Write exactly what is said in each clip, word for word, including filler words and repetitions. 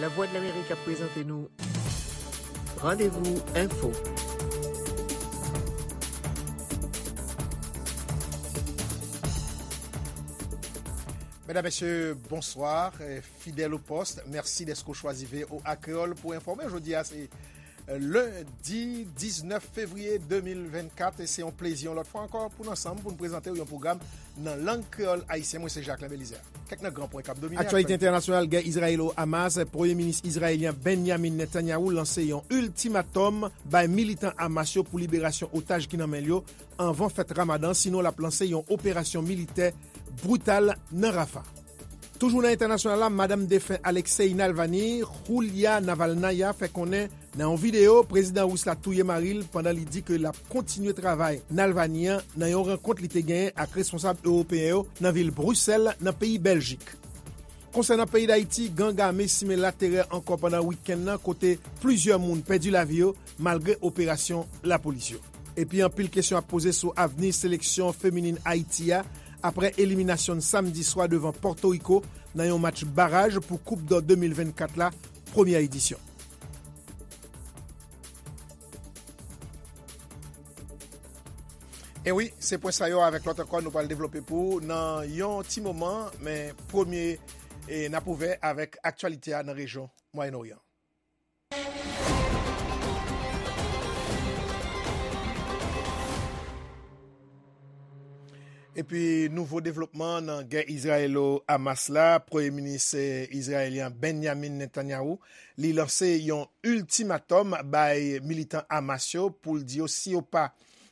Lavwadlamerik ap prezante nou Randevou Enfo. Medam, mesye, bonswa. Eh, fidèl o pòs, mèsi dèske w chwazi V O A Kreyòl pou enfòme. Jodi a se, eh, lendi diznèf fevriye de mil vennkat, e se yon plezi yon lòt fwa ankò pou n ansanm pou n prezante w yon pwogram nan lang kreyòl ayisyen. Mwen se Jacquelin Belizaire. Kèk nan gran pwen k ap domine aktyalite entènasyonal, gè Izrayelo-Hamas, Premye Minis Izrayelyen Benjamin Netanyahu lanse yon iltimatòm bay militan Hamas yo pou liberasyon otaj ki nan men l yo anvan fèt Ramadan, sinon l ap lanse yon operasyon militè brital nan Rafa. Toujou nan entènasyonal la, madanm defen Alexei Navalny, Julia Navalnaya, fè konnen nan yon videyo, prezidan ris la touye mari l pandan li di ke l ap kontinye travay Navalny an nan yon rankont li te genyen ak responsab ewopeyen yo nan vil Brisèl, nan peyi Bèljik. Konsènan peyi Dayiti, gang ame simen laterè ankò pandan wikenn nan, kote plizyè moun pèdi lavi yo malgre operasyon lapolis yo. Epi anpil kesyon ap poze sou avni seleksyon feminin Ayiti a apre eliminasyon n samdi swa devan Pòtoriko nan yon match baraj pou Koup dò de mil vennkat la, premyè edisyon. E wi, se pwen sa yo avèk lòt ankò nou pral devlope pou w nan yon ti moman, men premye, e, n ap ouvè avèk aktyalite a nan rejyon Mwayen Oryan. Epi nouvo devlopman nan gè Izrayelo-Hamas la, Premye Minis, eh, izrayelyen Benjamin Netanyahu, li lanse yon iltimatòm bay militan Hamas yo pou l di yo si yo pa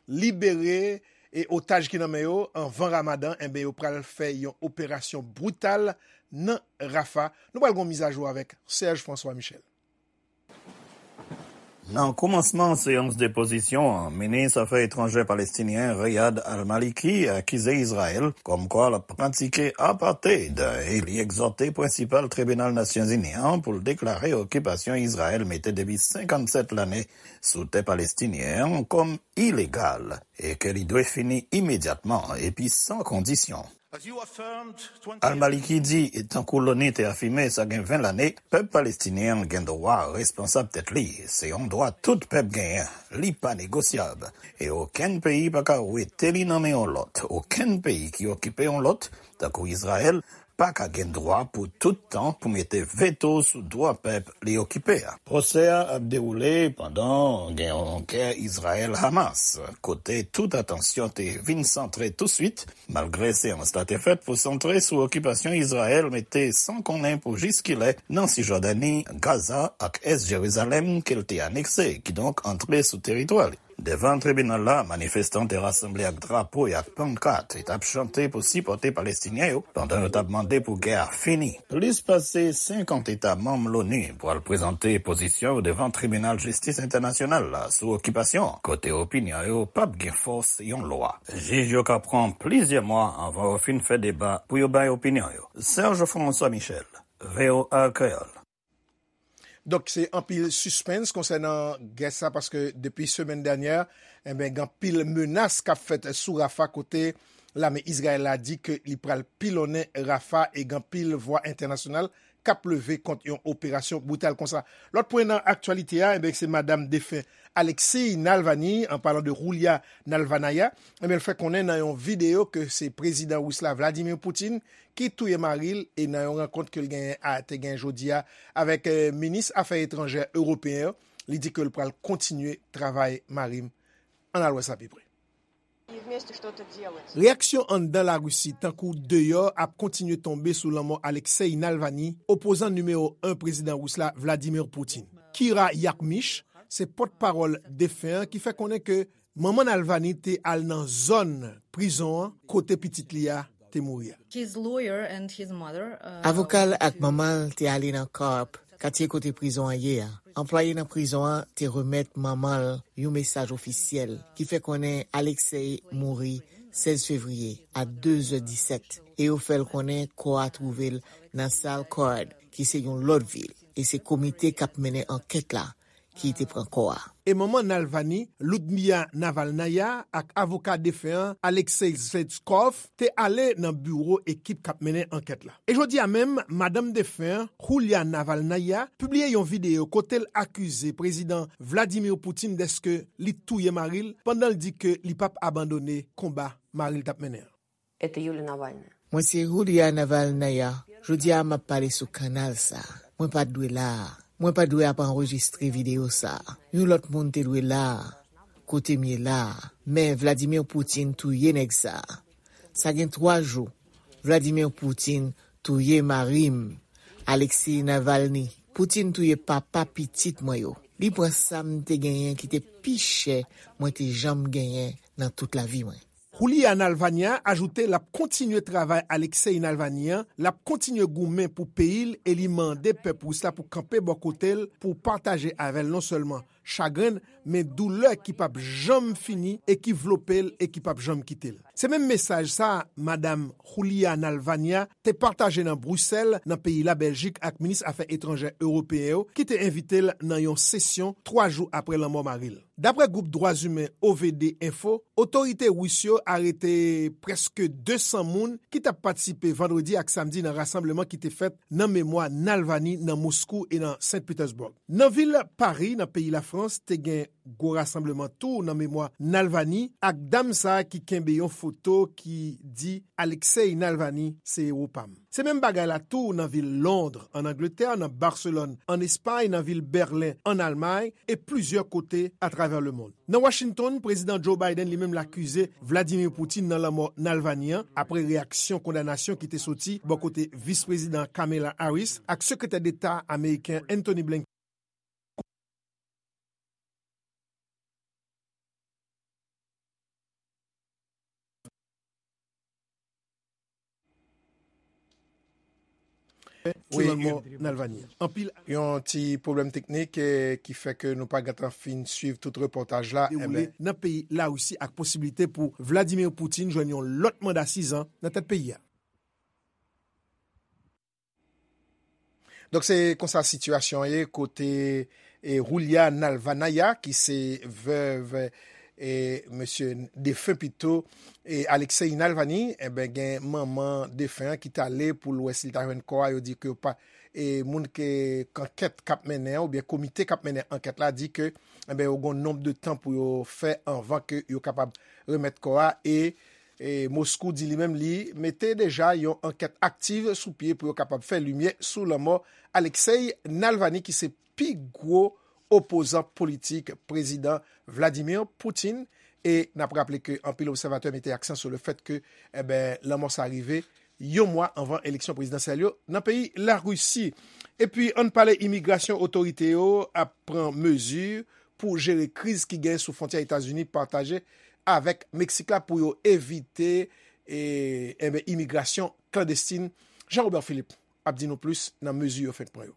libere e otaj ki nan men yo anvan Ramadan, enben yo pral fè yon operasyon brital nan Rafa. Nou pral gon mizajou avèk Serge François Michel. Nan kòmansman seyans depozisyon an, minis afè etranjè palestinyen Riyad al-Maliki akize Izrayèl kòmkwa l ap pratike apartheid e li egzòte prensipal tribinal Nasyonzini an pou l deklare okipasyon Izrayèl mete depi senkannsèt lane sou tè palestinyen an kòm ilegal e ke li dwe fini imedyatman epi san kondisyon. Al-Maliki di, tankou l'ONU te afime sa gen ven lane, pèp palestinyen an gen dwa responsab tèt li. Se yon dwa tout pèp genyen. Li pa negosyab. E okenn peyi pa ka wete li nan men yon lòt. Okenn peyi ki okipe yon lòt, tankou Izrayèl, pa ka gen dwa pou tout tan pou mete veto sou dwa pèp li okipe a. Pwosè a ap dewoule pandan gen yon gè Izrayèl-Hamas, kote tout atansyon te vin santre touswit, malgre seyans la te fèt pou santre sou okipasyon Izrayèl mete san konnen pou jiskilè nan Sijòdani, Gaza ak Ès Jerizalèm ke l te anekse, kidonk antre sou teritwa li. Devan tribinal la, manifestan te rasanble ak drapo e ak pankat e t ap chante pou sipòte Palestinyen yo pandan yo t ap mande pou gè a fini. Plis pase senkant eta manm l'ONU pral prezante pozisyon yo devan Tribinal Jistis Entènasyonal la sou okipasyon, kote opinyon yo p ap gen fòs yon lwa. Jij yo ka pran plizyè mwa anvan yo fin fè deba pou yo bay opinyon yo. Serge François Michel, V O A Kreyòl. Donk, se anpil sispens konsènan gè sa, paske depi semèn dènyè, enben, gen anpil menas k ap fèt sou Rafa, kote lame Izrayèl la di ke li pral pilonnen Rafa e gen anpil vwa entènasyonal k ap leve kont yon operasyon brital konsa. Lòt pwen nan aktyalite a, enben, se madanm defen Alexei Navalny, an palan de Julia Navalnaya, enben, l fè konnen nan yon videyo ke se prezidan ris la Vladimir Putin ki touye mari l, e nan yon rankont ke l genyen a, te genyen jodi a avèk, eh, minis afè etranjè ewopeyen yo, li di ke l pral kontinye travay mari m. Ann al wè sa pi pre. Reyaksyon anndan Larisi, tankou deyò, ap kontinye tonbe sou lanmò Alexei Navalny, opozan nimewo en prezidan ris la Vladimir Putin. Kira Yakmich, se pòtpawòl defen an ki fè konnen ke manman Navalny te al nan zòn prizon an kote pitit li a te mouri a. His lawyer and his mother, uh, Avoka l ak manman l te ale nan Karp, katye kote prizon an ye a. Anplwaye nan prizon an te remèt manman l yon mesaj ofisyèl ki fè konnen Alexei mouri sèz fevriye a de zè disèt, e yo fè l konnen kò a twouve l nan Salkhard, ki se yon lòt vil, e se komite k ap mennen ankèt la ki te pran kò a. E manman Navalny, Ludmila Navalnaya, ak avoka defen an, Alexei Zhivkov, te ale nan biwo ekip k ap mennen ankèt la. E jodi a menm, madanm defen an, Yulia Navalnaya, pibliye yon videyo kote l akize Prezidan Vladimir Putin dèske li touye mari l pandan l di ke li p ap abandone konba mari l t ap mennen an. Это Юлия Навальная. Mwen se Yulia Navalnaya. Jodi a m ap pale sou kanal sa. Mwen pa t dwe la a. Mwen pa t dwe ap anrejistre videyo sa. Yon lòt moun te dwe la a, kote m ye la a. Men Vladimir Putin touye nèg sa. Sa gen twa jou. Vladimir Putin touye mari m, Alexei Navalny. Putin touye papa pitit mwen yo. Li pran sa m te genyen ki te pi chè mwen te janm genyen nan tout lavi mwen. Yulia Navalnaya ajoute l ap kontinye travay Alexei Navalny an, l ap kontinye goumen pou peyi l e li mande pèp ris la pou kanpe bò kote l pou pataje avè l non sèlman chagren l, men doulè ki p ap janm fini e ki vlope l e ki p ap janm kite l. Se menm mesaj sa a, madanm Yulia Navalnaya te pataje nan Brisèl, nan peyi Labèljik, ak minis afè etranjè ewopeyen yo ki te envite l nan yon sesyon twa jou apre lanmò mari l. Daprè gwoup dwa imen O V D Info, otorite ris yo arete prèske de san moun ki t ap patisipe vandredi ak samdi nan rasanbleman ki te fèt nan memwa Navalny nan Moskou e nan Saint Petersburg. Nan vil Pari, nan peyi Lafrans, te gen gwo rasanbleman tou nan memwa Navalny ak dam sa a ki kenbe yon foto ki di Alexei Navalny se ewo pa m. Se menm bagay la tou nan vil Lond, ann Angletè, nan Baselòn, ann Espay, nan vil Bèlen, ann Almay, e plizyè kote atravè lemonn. Nan Washington, Prezidan Joe Biden li menm l akize Vladimir Putin nan lanmò Navalny an, apre reyaksyon kondanasyon ki te soti bò kote Vis Prezidan Kamala Harris ak Sekretè Deta ameriken Antony Blinken. Wi, Navalny. Anpil yon ti pwoblèm teknik, eh, ki fè ke nou pa gentan fin swiv tout repòtaj la, dewoule nan peyi Larisi ak posiblite pou Vladimir Putin jwenn yon lòt manda sizan nan tèt peyi a. Donk, se konsa sitiyasyon an ye kote, e, Yulia Navalnaya, ki se vèv, e, mesye defen pito, e, Alexei Navalny, enben, gen manman defen an ki t ale pou l wè si l ta jwenn kò a. Yo di ke yo pa, e, moun ke, k ankèt k ap mennen an, oubyen komite k ap mennen ankèt la, di ke, enben, yo gen yon nonb de tan pou yo fè anvan ke yo kapab remèt kò a. E, e Moskou di li menm li mete deja yon ankèt aktiv sou pye pou yo kapab fè limyè sou lanmò Alexei Navalny, ki se pi gwo opozan politik Prezidan Vladimir Putin. E n ap raple ke anpil obsèvatè mete aksan sou le fèt ke, enben, lanmò sa rive yon mwa anvan eleksyon prezidansyèl yo nan peyi Larisi. Epi, ann pale imigrasyon, otorite yo ap pran mezi pou jere kriz ki genyen sou fwontyè Etazini pataje avèk Meksik la pou yo evite, e, enben, imigrasyon klandestin. Jean Robert Philippe ap di nou plis nan mezi yo fenk pran yo.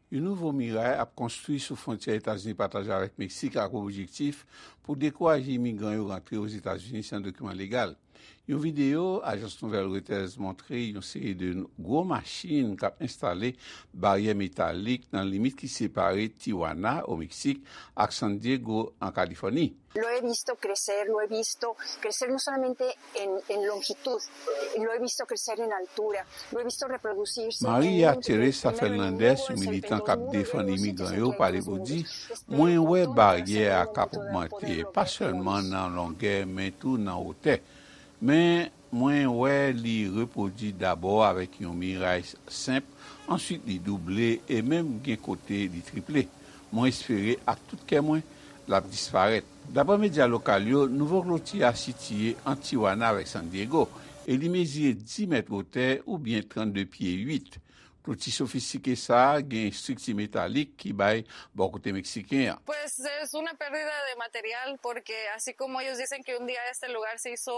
Yon nouvo miray ap konstwi sou fwontyè Etazini pataje avèk Meksik ak objektif pou dekouraje imigran yo rantre Ozetazini san dokiman legal. Yon videyo ajans nouvèl Reuters montre yon seri de gwo machin k ap enstale baryè metalik nan limit ki separe Tijuana, o Meksik, ak San Diego, an Kalifòni. Lo he visto crecer, lo he visto crecer no solamente en, en longitud, lo he visto crecer en altura, lo he visto reproducirse en Maria Teresa Fernandez, yon militan k ap defann imigran yo, pale pou di, mwen wè baryè a k ap ogmante, pa sèlman nan longè, men tou nan wotè. Men, mwen wè li repwodui dabò avèk yon miray senp, answit li double e menm gen kote li triple. Mwen espere ak tout kè mwen l ap disparèt. Daprè medya lokal yo, nouvo kloti a sitiye ant Tijuana avèk San Diego e li mezire dis mèt wotè oubyen trannde pye uit. Kloti sofistike sa a gen estrikti metalik ki bay bò kote meksiken an. Pues es una pérdida de material porque así como ellos dicen que un día este lugar se hizo,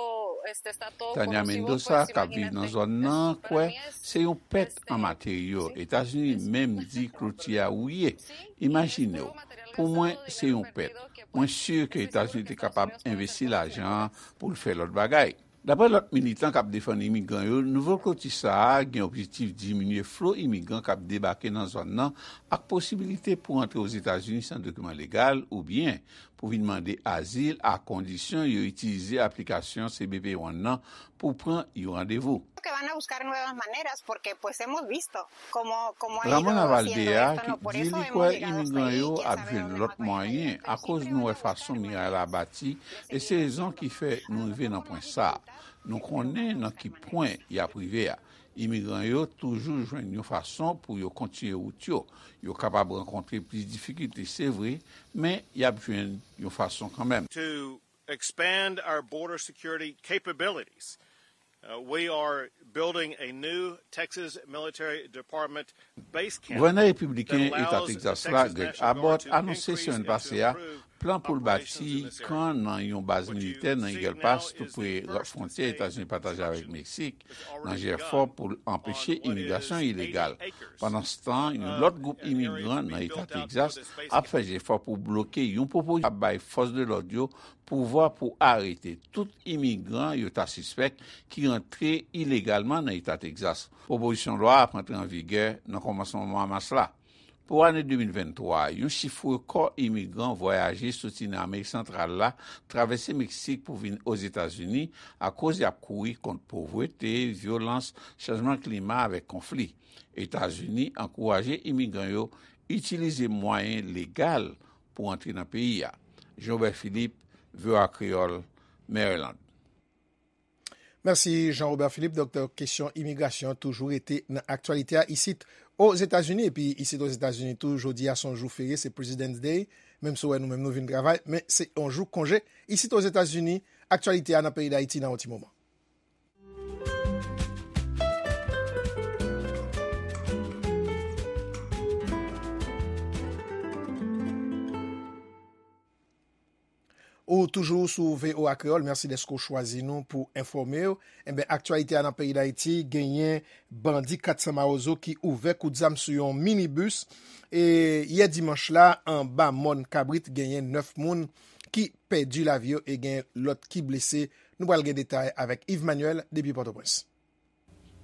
este, está todo Tania conocido, Mendoza, pues, k ap viv nan zòn nan, kwè se yon pèt an materyo. Etazini menm di kloti a wouye. Imajine w, pou mwen, se yon pèt. Mwen si ke Etazini te kapab envesti lajan an pou l fè lòt bagay. Daprè lòt militan k ap defann imigran yo, nouvo kloti sa a gen objektif diminye flo imigran k ap debake nan zòn nan ak posibilite pou antre Ozetazini san dokiman legal oubyen pou vin mande azil, a kondisyon yo itilize aplikasyon C B P One nan pou pran yon randevou. Que van a buscar nuevas maneras porque pues hemos visto cómo, cómo ha ido haciendo esto, ¿no? Por eso hemos llegado hasta ahí y quién sabe dónde más va a llegar. Ramon Avaldea, ki di li kwè imigran yo ap jwenn lòt mwayen akoz nou wè fason miray la bati, e se rezon ki fè nou rive nan pwen sa a. Nou konnen nan ki pwen y ap rive a. Imigran yo toujou jwenn yon fason pou yo kontinye wout yo. Yo kapab rankontre plis difikilte, se vre, men y ap jwenn yon fason kanmenm. To expand our border security capabilities. Uh, we are building a new Texas Military Department base camp. Gouvènè repibliken Eta Texas la, Greg Abbott, anonse semèn pase a plan pou l bati kan nan yon baz militè nan Eagle Pass, tou pre fwontyè Etazini pataje avèk Meksik, nan jefò pou l anpeche imigrasyon ilegal. Pandanstan, yon lòt gwoup imigran nan Eta Texas ap fè jefò pou bloke yon pwopozisyon k ap bay fòs de lòd yo pouvwa pou arete tout imigran yo ta sispèk ki rantre ilegalman nan Eta Texas. Pwopozisyon lwa a ap antre an vigè nan kòmansman mwa mas la. Pou ane de mil venntwa, yon chif rekò imigran vwayaje soti nan Amerik Santral la, travèse Meksik pou vin Ozetazini akoz y ap kouri kont povrete, vyolans, chanjman klima avèk konfli. Etazini ankouraje imigran yo itilize mwayen legal pou antre nan peyi a. Jean Robert Philippe, V O A Kreyòl, Maryland. Mèsi Jean Robert Philippe. Donk, kesyon imigrasyon an toujou rete nan aktyalite a isit Ozetazini. Epi isit Ozetazini tou, jodi a se yon jou ferye, se President's Day. Menm si w wè nou menm nou vin travay, men se yon jou konje. Isit Ozetazini, aktyalite a nan peyi Dayiti nan yon ti moman. Ou toujou sou V O A Kreyòl, mèsi dèske w chwazi nou pou enfòme w. Enben, aktyalite a nan peyi Dayiti, genyen bandi kat san Mawozo ki ouvè kout zam sou yon minibis. E yè dimanch la, anba mòn Kabrit, genyen nèf moun ki pèdi lavi yo e gen lòt ki blese. Nou pral gen detay avèk Yves Manuel depi Pòtoprens.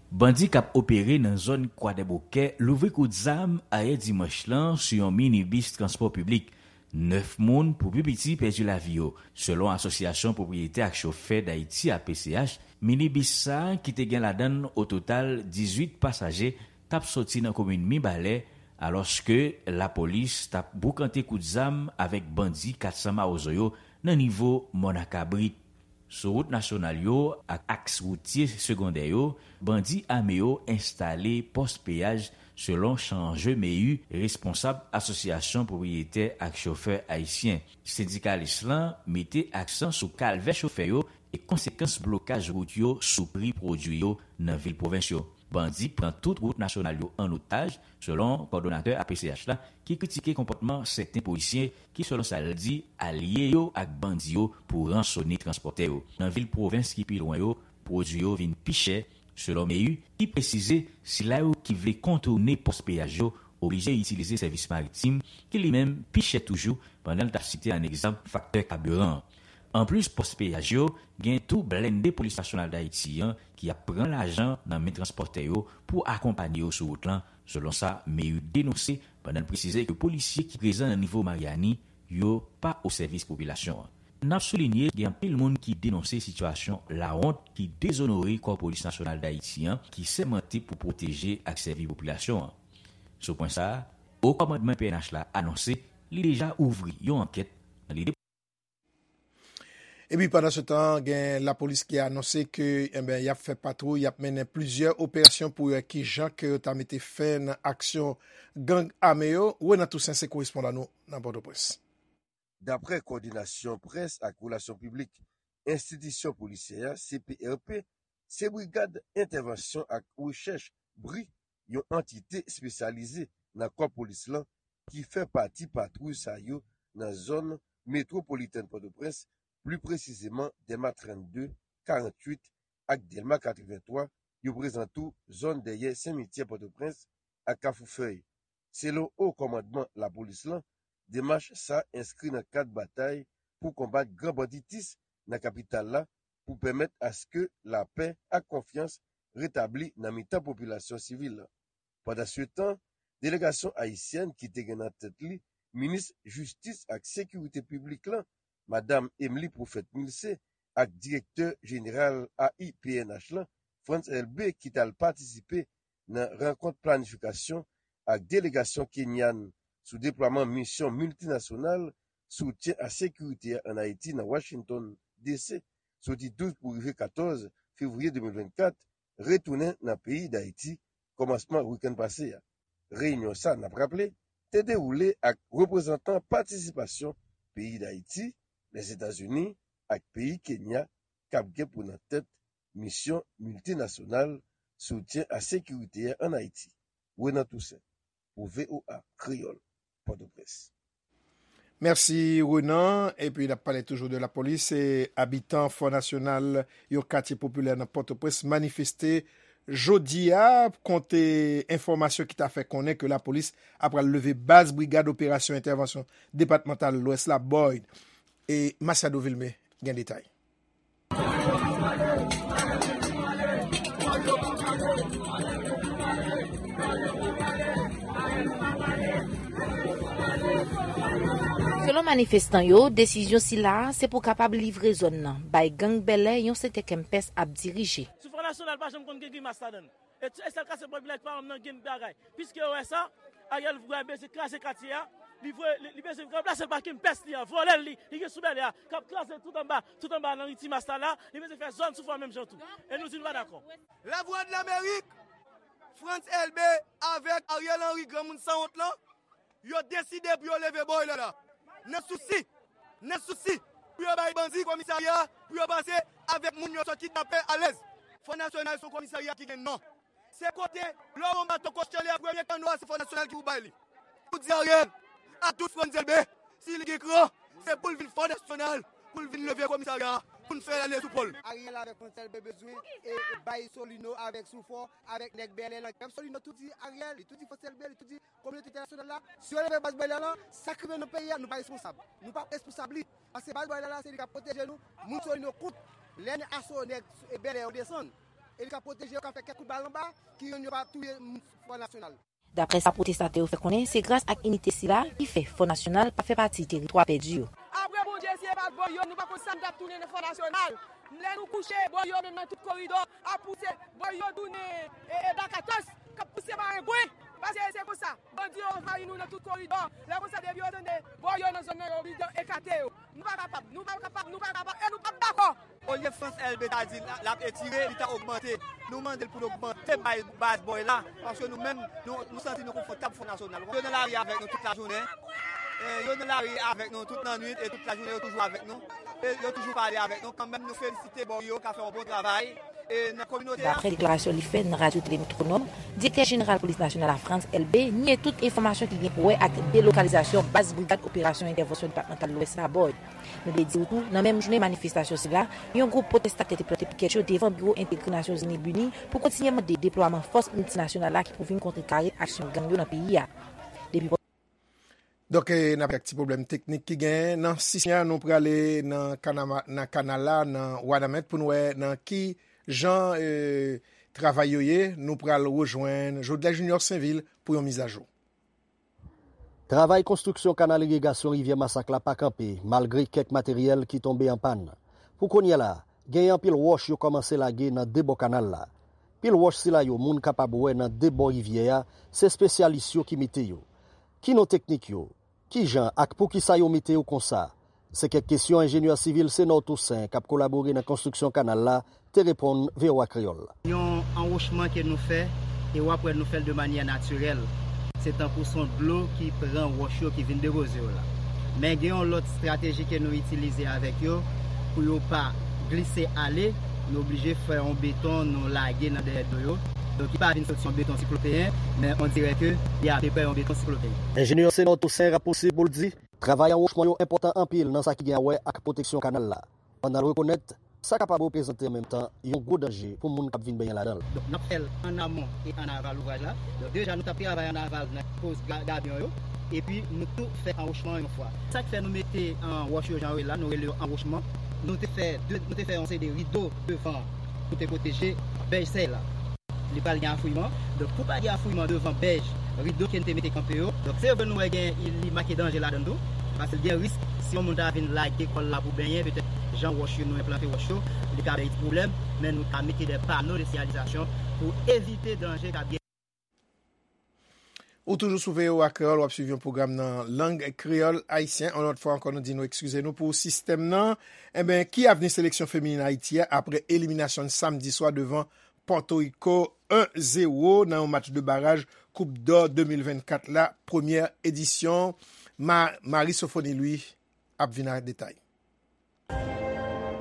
Bandi k ap opere nan zòn Kwadèbokè louvri kout zam ayè dimanch lan sou yon minibis transpò piblik. Nèf moun, pou pi piti, pèdi lavi yo. Selon Asosyasyon Pwopriyetè ak Chofè Dayiti, A P C H, minibis sa a, ki te gen ladan l o total dizuit pasaje, t ap soti nan komin Mibalè, alòske lapolis t ap boukante kout zam avèk bandi kat san Mawozo yo nan nivo Mòn a Kabrit. Sou wout nasyonal yo ak aks woutye segondè yo, bandi ame yo enstale pòs peyaj, selon Chanje Mehu, responsab Asosyasyon Pwopriyetè ak Chofè Ayisyen. Sendikalis lan mete aksan sou kalvè chofè yo e konsekans blokaj wout yo sou pri pwodui yo nan vil pwovens yo. Bandi pran tout wout nasyonal yo an otaj, selon kòdonatè A P C H la, ki kritike konpòtman sèten polisye ki, selon sa l di, alye yo ak bandi yo pou ransone transpòtè yo. Nan vil pwovens ki pi lwen yo, pwodui yo vin pi chè, selon Mehu, ki presize sila yo ki vle kontoune pòs peyaj yo oblije itilize sèvis maritim, ki li menm pi chè toujou, pandan l t ap site an egzanp faktè kabiran an. Anplis pòs peyaj yo, gen tou blende Polis Nasyonal Dayiti an ki ap pran lajan nan men transpòtè yo pou akonpanye yo sou wout lan, selon sa Mehu denonse, pandan l presize ke polisye ki prezan nan nivo Maryani yo pa o sèvis popilasyon an. N ap soulinye, gen anpil moun ki denonse sitiyasyon lawont ki dezonore Kò Polis Nasyonal Dayiti an, ki sèmante pou pwoteje ak sèvi popilasyon an. Sou pwen sa a, Wo Kòmandman P N H la anonse li deja ouvri yon ankèt nan lide. Epi pandansetan, gen lapolis ki anonse ke, enben, y ap fè patwouy, y ap mennen plizyè operasyon pou wè kijan ke yo ta mete fen nan aksyon gang ame yo. Renan Toussaint se korespondan nou nan Pòtoprens. Daprè Kowòdinasyon Près ak Relasyon Piblik Enstitisyon Polisyè a, C P R P, se Brigad Entèvansyon ak Rechèch, bri, yon antite espesyalize nan kò polis lan ki fè pati patwouy sa yo nan zòn metwopolitèn Pòtoprens, pli presizeman Dèlma trannde, karanntuit ak Dèlma katrevenntwa, yo prezan tou zòn dèyè simityè Pòtoprens ak Kafou Fèy. Selon Wo Kòmandman Lapolis lan, demach sa enskri nan kad batay pou konbat gran banditis nan kapital la, pou pèmèt aske lapè ak konfyans retabli nan mitan popilasyon sivil la. Pandansetan, delegasyon ayisyèn ki te gen nan tèt li minis jistis ak sekirite piblik lan, Madam Emily Prophète Milcé, ak direktè jeneral A I P N H lan, Frantz Elbé, ki t al patisipe nan rankont planifikasyon ak delegasyon kenyan sou deplwaman misyon miltinasyonal soutyen a sekirite a ann Ayiti nan Washington, D C, soti douz pou rive katòz fevriye de mil vennkat, retounen nan peyi Dayiti kòmansman wikenn pase a. Reyinyon sa, n ap raple, te dewoule ak reprezantan patisipasyon peyi Dayiti, Lèzetazini ak peyi Kenya k ap gen pou nan tèt misyon miltinasyonal soutyen a sekirite a ann Ayiti. Renan Toussaint, pou V O A Kreyòl, Pòtoprens. Mèsi, Renan. Epi, n ap pale toujou de lapolis. Se abitan Fò Nasyonal, yon katye popilè nan Pòtoprens, manifeste jodi a, konte enfòmasyon ki ta fè konnen ke lapolis apral leve baz Brigad Operasyon Entèvansyon Depatmantal Lwès la, Boyd. E Masiado Vilmé gen detay. Selon manifestan yo, desizyon sila a se pou kapab livre zòn nan bay gang bèlè yon sèten Kempès ap dirije. Sou Fò Nasyonal pa janm konn gen grimas ladan l. E, e sèl katye popilè ki pa janm nan gen bagay. Piske yo wè sa, Ariel vre bezwen kraze katye a. Li vre, li, li bezwen ranplase l pa Kempès li an, vòlè l li, li gen sou bèlè a, k ap kraze tout anba, tout anba nan ri Timas la la, li bezwen fè zòn sou Fò menm jan tou. E nou di nou pa dakò. Lavwadlamerik, Frantz Elbé avèk Ariel Henry, granmoun sanwont lan, yo deside pou yo leve Boyd la. Nan sousi, nan sousi pou yo bay bandi komisarya, pou yo pase avèk moun yo sot kidnape alèz. Fò Nasyonal se yon komisarya ki gen non. Se kote, lè w wè yon bato kòchè li a, premye kanno a, se Fò Nasyonal ki pou bay li. Pou di Ariel, a tout Frantz Elbé, si li gen kran, se pou l vin Fò Nasyonal, pou l vin leve komisarya a, pou n fè l ale sou pòl. Ariel avèk Frantz Elbé bezwen e, e bay Solino avèk Soufò, avèk nèg bèlè lan. Pèp Solino tou di Ariel, li tou di Frantz Elbé, li tou di kominote entènasyonal la, si yo leve baz bèlè lan, sa k rive nan peyi a, nou pa responsab. Nou pa responsab li. Paske baz bèlè la, se li k ap pwoteje nou, moun Solino kout. Lè n aso nèg e bèlè yo desann, e li k ap pwoteje yo, k ap fè kèk kout bal anba, ki youn yo pa touye moun Fò Nasyonal. Daprè sa pwotestatè yo fè konnen, se gras ak inite sila ki fè Fò Nasyonal pa fè pati teritwa pèdi yo. Apre Bondye, si e pa t Boyd yo, nou pa konn sa n t ap tounen nan Fò Nasyonal. Lè nou kouche, Boyd yo menm nan tout koridò ap pouse, Boyd yo tounen, e, e, Dakatòs, k ap pouse marengwen. Paske se konsa, bandi yo anvayi nou nan tout koridò. Lè konsa, depi yo tande Boyd yo nan zòn nan, yo oblije ekate yo. Nou pa kapab, nou pa kapab, nou pa kapab, e nou p ap dakò. Olye Frantz Elbé ta di l, l ap etire, li ta ogmante. Nou mande l pou l ogmante bay baz Boyd la, paske nou menm, nou, nou santi nou konfòtab Fò Nasyonal. Yo nan lari avèk nou tout lajounen. E, yo nan lari avèk nou tout lannwit e tout lajounen yo toujou avèk nou. E yo toujou pale avèk nou. Kanmenm, nou felisite Boyd yo k ap fè yon bon travay. E nan kominote a. Daprè deklarasyon li fè nan Radyo Tele Metwonòm, direktè jeneral polis nasyonal la, Frantz Elbé, nye tout enfòmasyon ki gen pou wè ak delokalizasyon baz Brigad Operasyon Entèvansyon Depatmantal Lwès la, Boyd. Nou vle di w tou, nan menm jounen manifestasyon sila, yon gwoup pwotestatè te plante pikèt yo devan biwo entegre Nasyonzini Bini pou kontinye mande deplwaman fòs miltinasyonal la ki pou vin kontrekare aksyon gang yo nan peyi a. Depi Donk, e, n ap ak ti pwoblèm teknik ki genyen. Nan sisyon an, nou prale nan kanama-, nan kanal la, nan Wanament, pou n wè nan ki jan, e, travay yo ye. Nou pral rejwenn Jodlè Junior Sainvil pou yon mizajou. Travay konstriksyon kanal irigasyon Rivyè Masak la pa kanpe, malgre kèk materyèl ki tonbe an pàn. Pou kounye a la, genyen anpil wòch yo kòmanse lage nan de bò kanal la. Pil wòch sila yo moun kapab wè nan de bò rivyè a, se espesyalis yo ki mete yo. Ki non teknik yo? Kijan ak poukisa yo mete yo konsa? Se kèk kesyon enjenyè sivil Senor Toussaint, k ap kolabore nan konstriksyon kanal la, te reponn V O A Kreyòl. Yon anwochman ke nou fè, e w ap wè nou fè l de manyè natirèl. Se tankou se yon dlo ki pran wòch yo, ki vin depoze yo la. Men gen yon lòt estrateji ke nou itilize avèk yo pou yo pa glise ale, nou oblije fè yon beton nou lage nan dèyè do yo. Donk, li pa vin soti yon beton siklopeyen, men on dirè ke li apeprè yon beton siklopeyen. Enjenyè Senor Toussaint rapousib pou l di, travay anwochman yo enpòtan anpil nan sa ki gen a wè ak pwoteksyon kanal la. Pandan l rekonèt, sa kapab reprezante an menm tan yon gwo danje pou moun k ap vin benyen ladan l. Donk, n ap fè l ann amon e ann aval ouvraj la. Donk, deja, nou t ap travay ann aval nan poz ga-, gabyon yo. Epi, nou tou fè anwochman an yon fwa. Sa k fè nou mete, an, wòch yo jan yo ye la, nou rele yo anwochman. nou te fè de, nou te fè yon seri de rido devan pou te pwoteje bèj sèy la. Li pral gen afouiman. Donk, pou pa gen afouiman devan bèj, rido ke n te mete kanpe yo. Donk, se yo ke nou wè gen, li make danje ladan l tou. Paske l gen risk, si yon moun ta vin lage kò l la pou benyen, petèt jan wòch yo, nou enplante wòch yo, li ka bay pwoblèm. Men nou ka mete de pano de siyalizasyon pou evite danje k ap gen. Ou toujou sou V O A Kreyòl, w ap swiv yon pwogram nan lang kreyòl ayisyen. Yon lòt fwa ankò, nou di nou eskize nou pou sistèm nan. Enben, ki avni seleksyon feminin Ayiti a apre eliminasyon n samdi swa devan Pòtoriko en zewo nan yon match de baraj Koup dò de mil vennkat la, premyè edisyon? Ma-, Marie Sophonie Louis ap vin ak detay.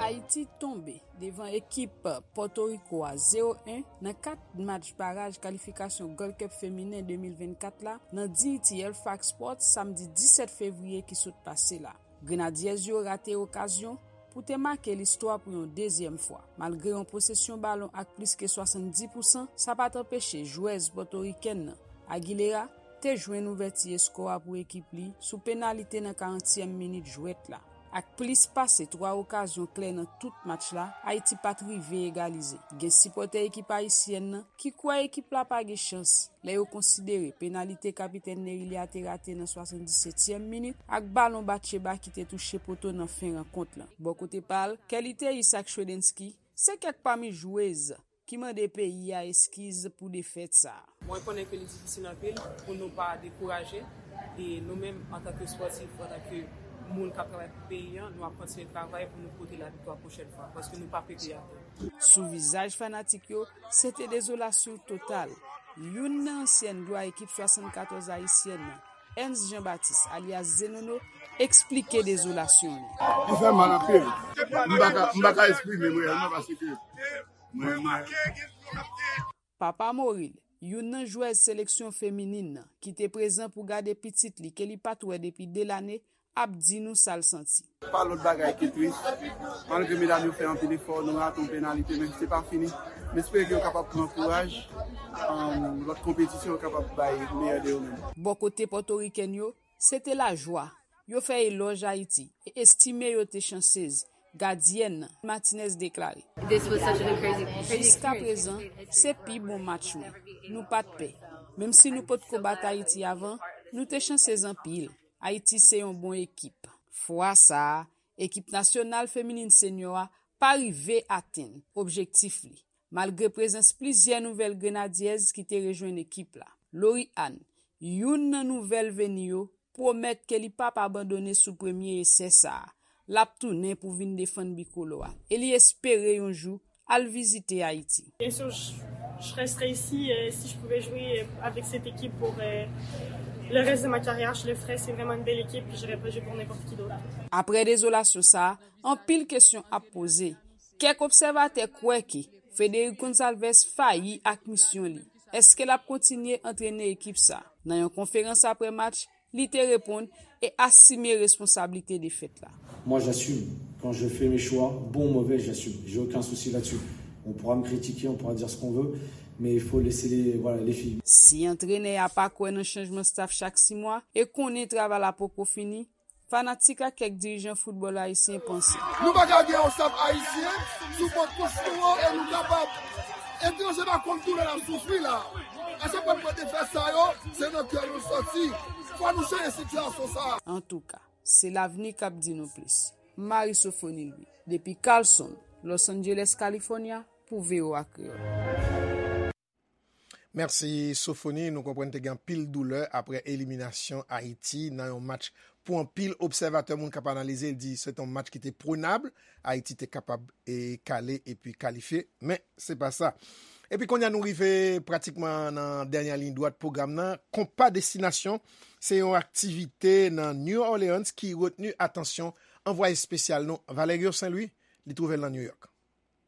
Ayiti tonbe devan ekip Pòtoriko a zewo en nan kat match baraj kalifikasyon Gold Cup feminen de mil vennkat la nan Dignity Halifax Sports samdi disèt fevriye ki sot pase la. Grenadiyèz yo rate okazyon pou te make listwa pou yon dezyèm fwa. Malgre yon posesyon balon ak plis ke swasanndis pousan, sa pa t anpeche jwèz pòtorikèn nan, Aguilera, te jwenn ouvèti eskò a pou ekip li sou penalite nan karantyèm minit jwèt la. Ak plis pase twa okazyon klè nan tout match la, Ayiti pa t rive egalize. Gen sipòtè ekip ayisyèn nan ki kwè ekip la pa gen chans lè yo konsidere penalite kapitèn Nerilia te rate nan swasanndisetyèm minit ak balon Batcheba ki te touche poto nan fen rankont lan. Bò kote pa l, Kelly Théis ak Shredensky se kèk pami jwez ki mande peyi a eskiz pou defèt sa a. Mwen konnen ke li difisil anpil pou nou pa dekouraje. E nou menm, antanke spòtif, antanke moun k ap travay pou peyi a, nou ap kontinye travay pou nou pote laviktwa pwochèn fwa, paske nou pa pete atè. Sou vizaj fanatik yo, se te dezolasyon total. Youn nan ansyèn glwa ekip swasannkatòz ayisyèn nan, Ernst Jean Baptiste, alyas Zenono, eksplike dezolasyon li. Li fè mal anpil. M pa ka, m pa ka eksprime m reyèlman paske mwen, mwen, Papa Moril, youn nan jwèz seleksyon feminin nan, ki te prezan pou gade pitit li ke li pa t wè depi de lane, ap di nou sa l santi. Pa lòt bagay ke tris. Malgre medam yo fè anpil efò, nou rate yon penalite, men se pa fini. M espere ke yo kapab pran kouraj, um, lòt konpetisyon yo kapab bay meyè de yo menm. Bò kote pòtorikèn yo, se te lajwa. Yo fè elòj Ayiti e estime yo te chansez, gadyèn nan, Martinez deklare. Jiskaprezan, se pi bon match mwen. Nou pa t pè. Menm si nou potko bat Ayiti avan, nou te chansez anpil. Ayiti se yon bon ekip. Fwa sa a, ekip nasyonal feminin senyò a pa rive atenn objektif li, malgre prezans plizyè nouvèl Grenadyèz ki te rejwenn ekip la. Lori Ann, youn nan nouvèl veni yo, pwomèt ke li p ap abandone sou premye esè sa a. L ap tounen pou vin defann bikolo a e li espere yon jou al vizite Ayiti. Bien sûr, je, je resterai ici. Euh, si je pouvais jouer, euh, avec cette équipe pour, euh, le reste de ma carrière, je le ferais. C'est vraiment une belle équipe, puis j'irais pas jouer pour n'importe qui d'autre. Apre dezolasyon sa a, anpil kesyon ap poze. Kèk obsèvatè kwè ke Frederick Gonçalves fayi ak misyon li. Èske l ap kontinye antrene ekip sa? Nan yon konferans apre match, li te reponn e asime responsablite defèt la. Moi, j'assume. Quand je fais mes choix, bon ou mauvais, j'assume. J'ai aucun souci là-dessus. On pourra me critiquer, on pourra dire ce qu'on veut, mais il faut laisser les, voilà, les filles. Si antrenè a pa kwè nan chanjman staff chak sis mwa e konnen travay la poko fini, fanatik ak kèk dirijan foutbòl ayisyen panse. Nou pa ka gen yon staff ayisyen sou pòt kouch nou an e nou kapab. Etranje pa konn doulè n ap soufri la. A chak fwa n pran defèt sa yo, se nan kè nou sòti. Fò nou chanje sitiyasyon sa a. Antouka, se lavni k ap di nou plis. Marie Sophonie Louis, depi Carlson, Los Angeles, California, pou V O A Kreyòl. Mèsi Sophonie, nou konprann te gen anpil doulè apre eliminasyon Ayiti nan yon match pou anpil obsèvatè, moun k ap analize, di se te yon match ki te prenab, Ayiti te kapab e kale epi kalifye, men se pa sa. Epi kounye a nou rive pratikman nan dènye liy dwat pwogram nan. Konpa Destinasyon se yon aktivite nan New Orleans ki retni atansyon anvwaye espesyal nou, Valerio Saint Louis, li twouve l nan New York.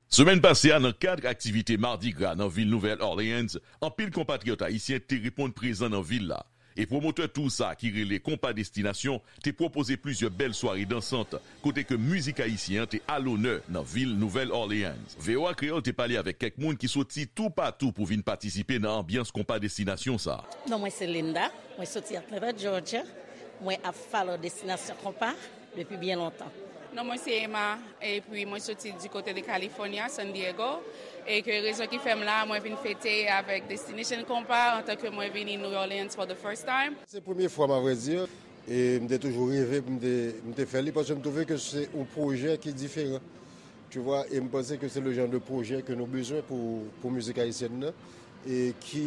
Semèn pase a, nan kad aktivite Mardi Gras nan vil Nouvèl Orleans, anpil konpatriyòt ayisyen te reponn prezan nan vil la. E pwomotè tour sa a ki rele Konpa Destinasyon te pwopoze plizyè bèl sware dansant, kote ke mizik ayisyen an te alonè nan vil Nouvèl Orleans. V O A Kreyòl te pale avèk kèk moun ki soti toupatou pou vin patisipe nan anbyans Konpa Destinasyon sa a. Non, mwen se Linda, mwen soti Atlanta, Georgia. Mwen ap follow Destinasyon Konpa depi byen lontan. Non, mwen se Emma, epi mwen soti di kote de California, San Diego, e ke rezon ki fè m la, mwen vin fete avèk Destination Compas antan ke mwen vini New Orleans for the first time. Se premye fwa m, avrèdi, e m te toujou reve pou m te, m te fè li, paske m twouve ke se yon pwojè ki diferan. Tu vois, e m panse ke se le jan de pwojè ke nou bezwen pou, pou mizik ayisyèn nan, e ki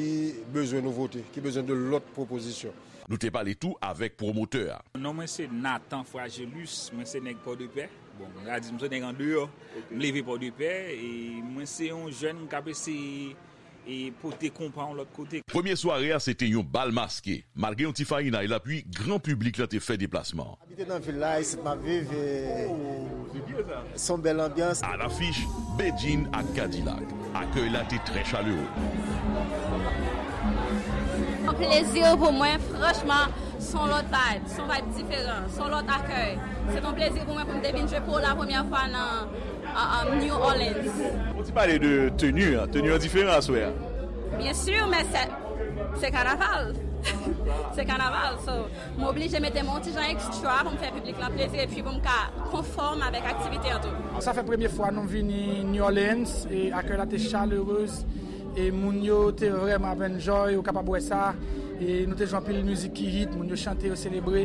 bezwen nouvote, ki bezwen de lòt pwopozisyon. Nou te pale tou avèk pwomotè a. Non mwen se Nathan Fragelus, mwen se nèg Pòdepè. Bon, m ka di m se nèg andeyò. M leve Pòdepè, e mwen se yon jèn k ap eseye e pote konpa yon lòt kote. Premye sware a se te yon bal maske. Malgre yon ti farinay lapli, gran piblik la te fè deplasman an. Abite nan vil la, isit m ap viv, e se yon bèl anbyans. Alafich, Bedjine ak Kadilak. Akèy la te trè chalere. Yon plezi pou mwen, franchman, se yon lòt vibe, se yon vibe diferan, se yon lòt akèy. Se yon plezi pou mwen pou m te vin jwe pou la premyè fwa nan, nan, nan New Orleans. Ou ti pale de teni an, teni an diferan aswè a. Byen si, men se, se kanaval. Se kanaval, so, m oblije mete m yon ti jan ekstra pou m fè piblik lan plezi epi pou m ka konfòm avèk aktivite an tou. Sa fè premye fwa nou vini New Orleans e akèy la te chalerez e moun yo te vrèman ap enjoy, ou kapab wè sa. E nou te jwe anpil mizik ki hit, moun yo chante, yo selebre.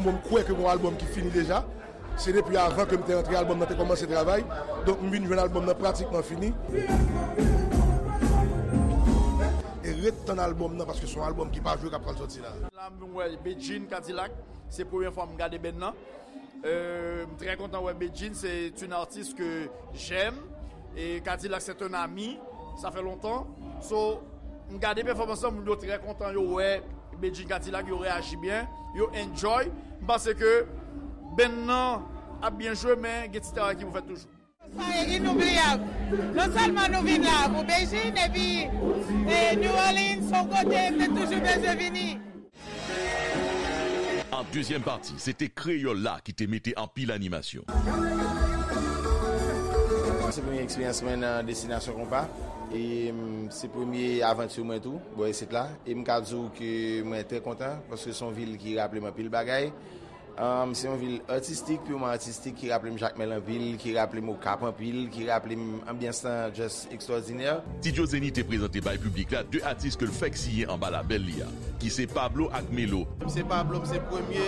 Bon, m kwè ke gon albòm ki fini deja. Se depi avan ke m te antre, albòm nan te kòmanse travay. Donk, m vin jwenn albòm nan pratikman fini. E ret tann albòm nan, paske se yon albòm ki pa jwe k ap pral sòti la. La, m wè Bedjine Kadilak. Se premye fwa m gade band nan. Euh, m trè kontan wè Bedjine, c'est une artiste que j'aime. E Kadilak, c'est un ami. Sa fè lontan. So, m gade pèfòmans lan, moun yo trè kontan, yo wè Bedjine Kadilak, yo reyaji byen, yo enjoy. M panse ke band nan ap byen jwe, men gen ti travay ki pou fèt toujou. Sa e inoubliyab. Non sèlman nou vin la pou Bedjine, epi, e, New Orleans, se yon kote m te toujou bezwen vini. An dezyèm pati, se te Kreyòl la ki te mete anpil animasyon. Se premye eksperyans mwen nan Destinasyon Konpa. E, mm, se premye avanti mwen tou, bò isit la. E m ka di w ke mwen trè kontan, paske se yon vil ki raple m anpil bagay. Um, se yon vil atistik, piman atistik, ki raple m Jakmèl anpil, ki raple m Okap anpil, ki raple m anbyans lan just ekstwòdinè. Ti Joe Zenny te prezante bay piblik la de atis ke l fèk siyen anba labèl li a, ki se Pablo ak Melo. M se Pablo, m se premye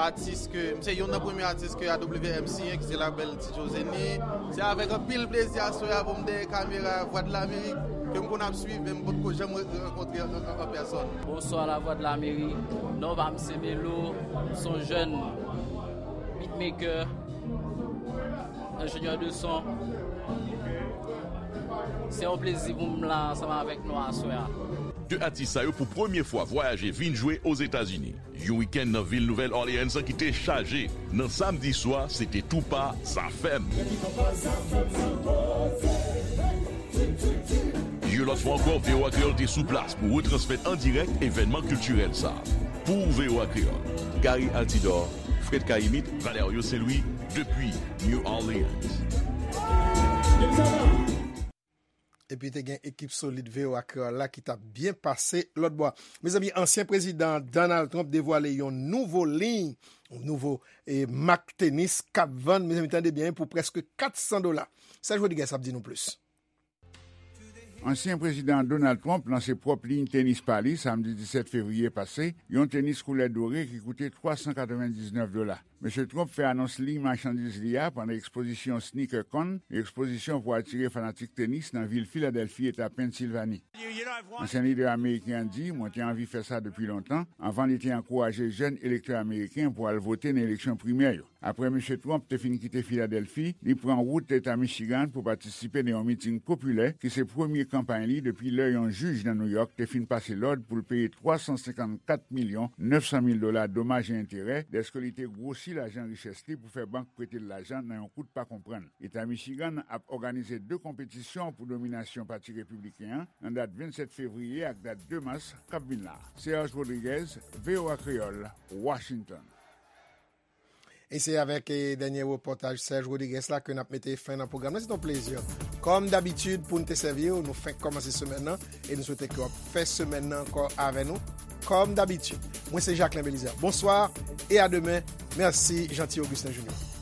atis ke, m se youn nan premye atis ke A W M siyen, ki se labèl Ti Joe Zenny. Se avèk anpil plezi aswè a pou m dèyè kamera Vwadlamerik, ke m konn ap swiv, men m potko janm re-, rankontre an, an, an pèsòn. Bonsoir Lavwadlamerik. Non pa m se Melo, m se yon jèn beatmaker, enjenyè de son. Se yon plezi pou m la ansanm avèk nou aswè a. De atis sa yo pou premye fwa vwayaje vin jwe Ozetazini. Yon wikenn nan vil Nouvèl Orleans ki te chaje. Nan samdi swa, se te tou pa Zafèm. Yon lòt fwa ankò, V O A Kreyòl te sou plas pou retransmèt an dirèk evènman kiltirèl sa a. Pou V O A Kreyòl, Gary Altidor, Fred Cayimite, Valerio Saint-Louis, depi New Orleans. Epi te gen ekip solid V O A Kreyòl la ki t ap byen pase lòt bò a. Mezanmi, ansyen prezidan Donald Trump devwale yon nouvo liy, yon nouvo, e, mak tenis k ap vann, mezanmi, tande byen, pou prèske kat san dola. Serge Rodriguez ap di nou plis. Ansyen prezidan Donald Trump lanse pwòp liy tenis pa li samdi disèt fevriye pase, yon tenis koulè dore ki koute twa san katrevendiznèf dola. Mesye Trump fè anons liy machandiz li a pandan ekspozisyon SneakerCon, yon ekspozisyon pou atire fanatik tenis nan vil Filadèlfi, eta Pennsilvani. Ansyen lidè ameriken an di, mwen te anvi fè sa depi lontan, anvan li te ankouraje jèn elektè ameriken pou al vote nan eleksyon primè yo. Apre Mesye Trump te fin kite Filadèlfi, li pran wout eta Michigan pou patisipe nan yon miting popilè ki se premye kanpay li depi lè yon jij nan Nouyòk te fin pase lòd pou l peye twa san senkannkat milyon nèf san mil dola domaj e enterè dèske li te gwosi lajan richès li pou fè bank prete l lajan nan yon kout pa konprann. Eta Michigan ap òganize de konpetisyon pou dominasyon Pati Repibliken an nan dat vennsèt fevriye ak dat de mas k ap vin la. Serge Rodriguez, V O A Kreyòl, Washington. E se avèk eh, dènye repòtaj Serge Rodriguez la ke n ap mete fen nan pwogram nan. Se yon plezi. Kòm dabitid, pou n te sèvi w, nou fenk kòmanse semèn nan e nou swete ke w ap fè semèn nan ankò avè nou. Kòm dabitid, mwen se Jacquelin Belizaire. Bonswa e a demen. Mèsi, Jeanty Augustin Junior.